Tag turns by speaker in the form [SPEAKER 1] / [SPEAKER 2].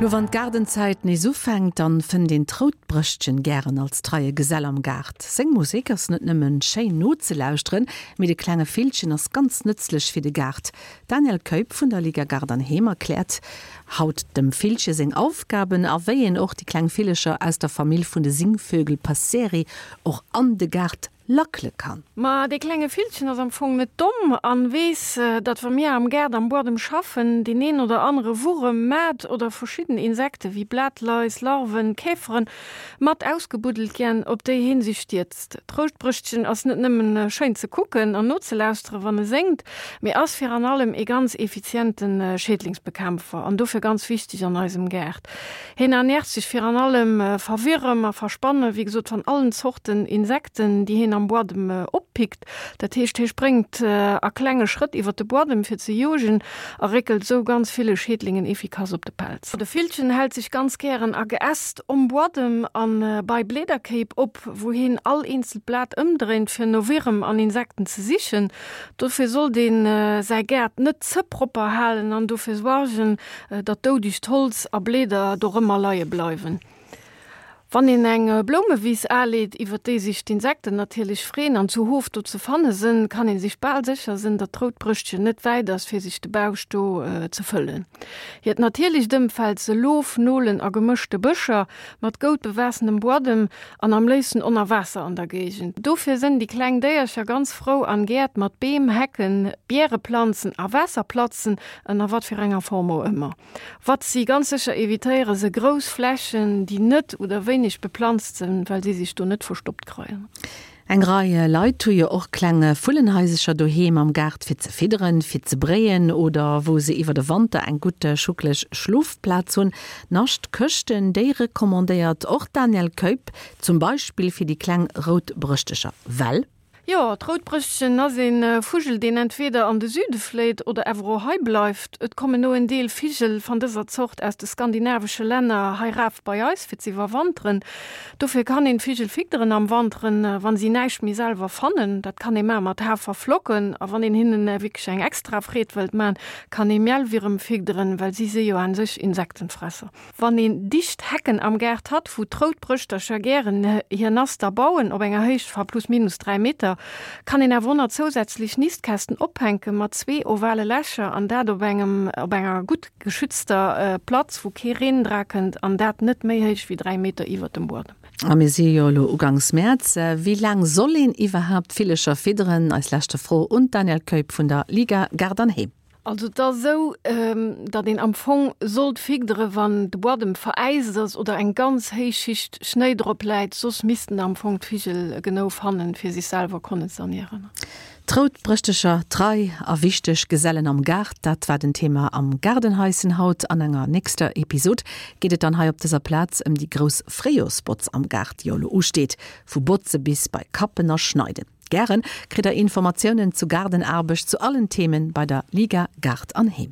[SPEAKER 1] Lo wann d'Gaardenzäit nees ufänkt, dann fënnt een d'Routbrëschtchen gären als treie Gesell am Gaart. Seng Musek ass net nëmmen schéin nozelauschteren, mee de klenge Villchen ass ganz nëtzlech fir de Gaart. D'Danièle Keup vun der Liga Gaart an Heem erkläert haut dem Villche seng Aufgaben a wéi een och déi kleng Villecher aus der Famill vun de Singvögel Passeri och an de Gaart lackele kann.
[SPEAKER 2] Ma dee klenge Villchen ass am Fong net domm an weess, datt wa mir am Gaart am Buadem schaffen, deen een oder anere Wurem, Maat oder verschidden Insekte wéi Blatlais, Larven, Käferen mat ausgebuddelt giänn, op déi heen sech stierzt. D'Routbrëschtchen ass net nëmmen schéin ze kucken an nozelauschteren, wann e séngt, mee ass fir an allem ee ganz effizienten Schädlingsbekämpfer an dofir ganz wichteg an eisem Gaart. Hien ernährt sech fir an allem va Wierem a va Spanne, wéi gesot van allen Zorten Insekten, déi hien am Buadem oppickt. Dat heescht, hie spréngt a klenge Schrëtt iwwer de Buadem fir ze jogen a réckelt esou ganz ville Schädlingen efficace op de Pelz. De Villchen hält sech ganz gären a Geäst om Buadem a bei Bleederkéip op, wou hien all eenzelt Blat ëmdréint fir no Wierem an Insekten ze sichen. Dofir sollt een säi Gaart net ze propper halen an dofir suargen, datt doudegt Holz a Bleeder dorëmmer leie bleiwen. Wann een eng Bloumewiss aleet, iwwer déi sech d'Insekten natierlech freen an zu Hof do ze fanne sënn, kann ee sech bal sécher sënn, datt d'Routbrëschtchen net wäit ass, fir sech de Bausch do ze fëllen. Hiert natierlecht Ëmfeld se Loof, Nolen a gemëschte Bëscher mat goud bewaassenem Buadem an am léifsten onner Waasser an der Géigend. Dofir sënn déi kleng Déiercher ganz frou an Gäert mat Beem, Hecken, Biereplanzen a Waasserplatzen, Ënner wat fir enger Form och ëmmer. Wat si ganz sécher evitéiere se grouss Flächen, déi net oder wéineg beplanzt sinn, well si sech do net verstoppt kreien.
[SPEAKER 1] Eng Rei Leit hu jo och kleng Vullenhaisercher doheem am Gaart fir ze fidderen, fir ze bréien oder wou se iwwer de Wanter eng gutt schuckeleg Schlofplaz hunn. Naschtkëschten, déi recommandéiert och d'Danièle Keup, zum Beispill fir déi kleng Routbrëschtecher, well.
[SPEAKER 2] Jo, d'Routbrëschtchen ass ee Vugel, deen entweeder an de Süde fléit oder awer och hei bleift. Et kommen no en Deel Vigel van dëser Zort aus de skandinavesche Länner hei raf bei eis fir z'iwwerwanteren. Dofir kann een d'Vigel fidderen am Wanteren, wann si näischt méi selwer fannen. Dat kann ee man mat Haferflocken a wann een hinnen wierklech eng extra Freed wëllt man, kann ee Mielwierem fidderen, well si si jo aan sech Insektenfresser. Wann een dicht Hecken am Gaart hat, wou d'Routbrëschtercher gären hir Naster bauen, op enger Héicht va plus minus 3 Meter, kann een awer och zousätzlech Nistkästen ophänke mat zwee ovale Lächer an dat op engem op enger gutt geschützter Platz, wou kee Reen dra kënnt an dat net méi héich wéi 3 Meter iwwert dem Buedem.
[SPEAKER 1] A mir si jo elo ugangs Mäerz. Wéi laang soll een iwwerhaapt Villecher fidderen? Eis leschte Fro un d'Danièle Keup vun der Liga Gaart an Heem.
[SPEAKER 2] Also et ass esou, datt een am Fong sollt figdere wann de Buadem veräist ass oder eng ganz héich Schicht Schnéi drop läit, soss missten am Fong d'Vigel genou fannen, fir sech selwer konnen z'ernieren.
[SPEAKER 1] D'Routbrëschtecher, trei a wichteg Gesellen am Gaart, dat war den Thema am Gaardenhaischen haut. An enger nächster Episod geet et dann hei op dëser Plaz ëm déi grouss Fréijoersbotz am Gaart, déi jo elo usteet, vu Botze bis bei Kappen a Schneiden. Gären kritt der Informatiounen zu Gaardenaarbecht zu allen Themen bei der Liga Gaart an Heem.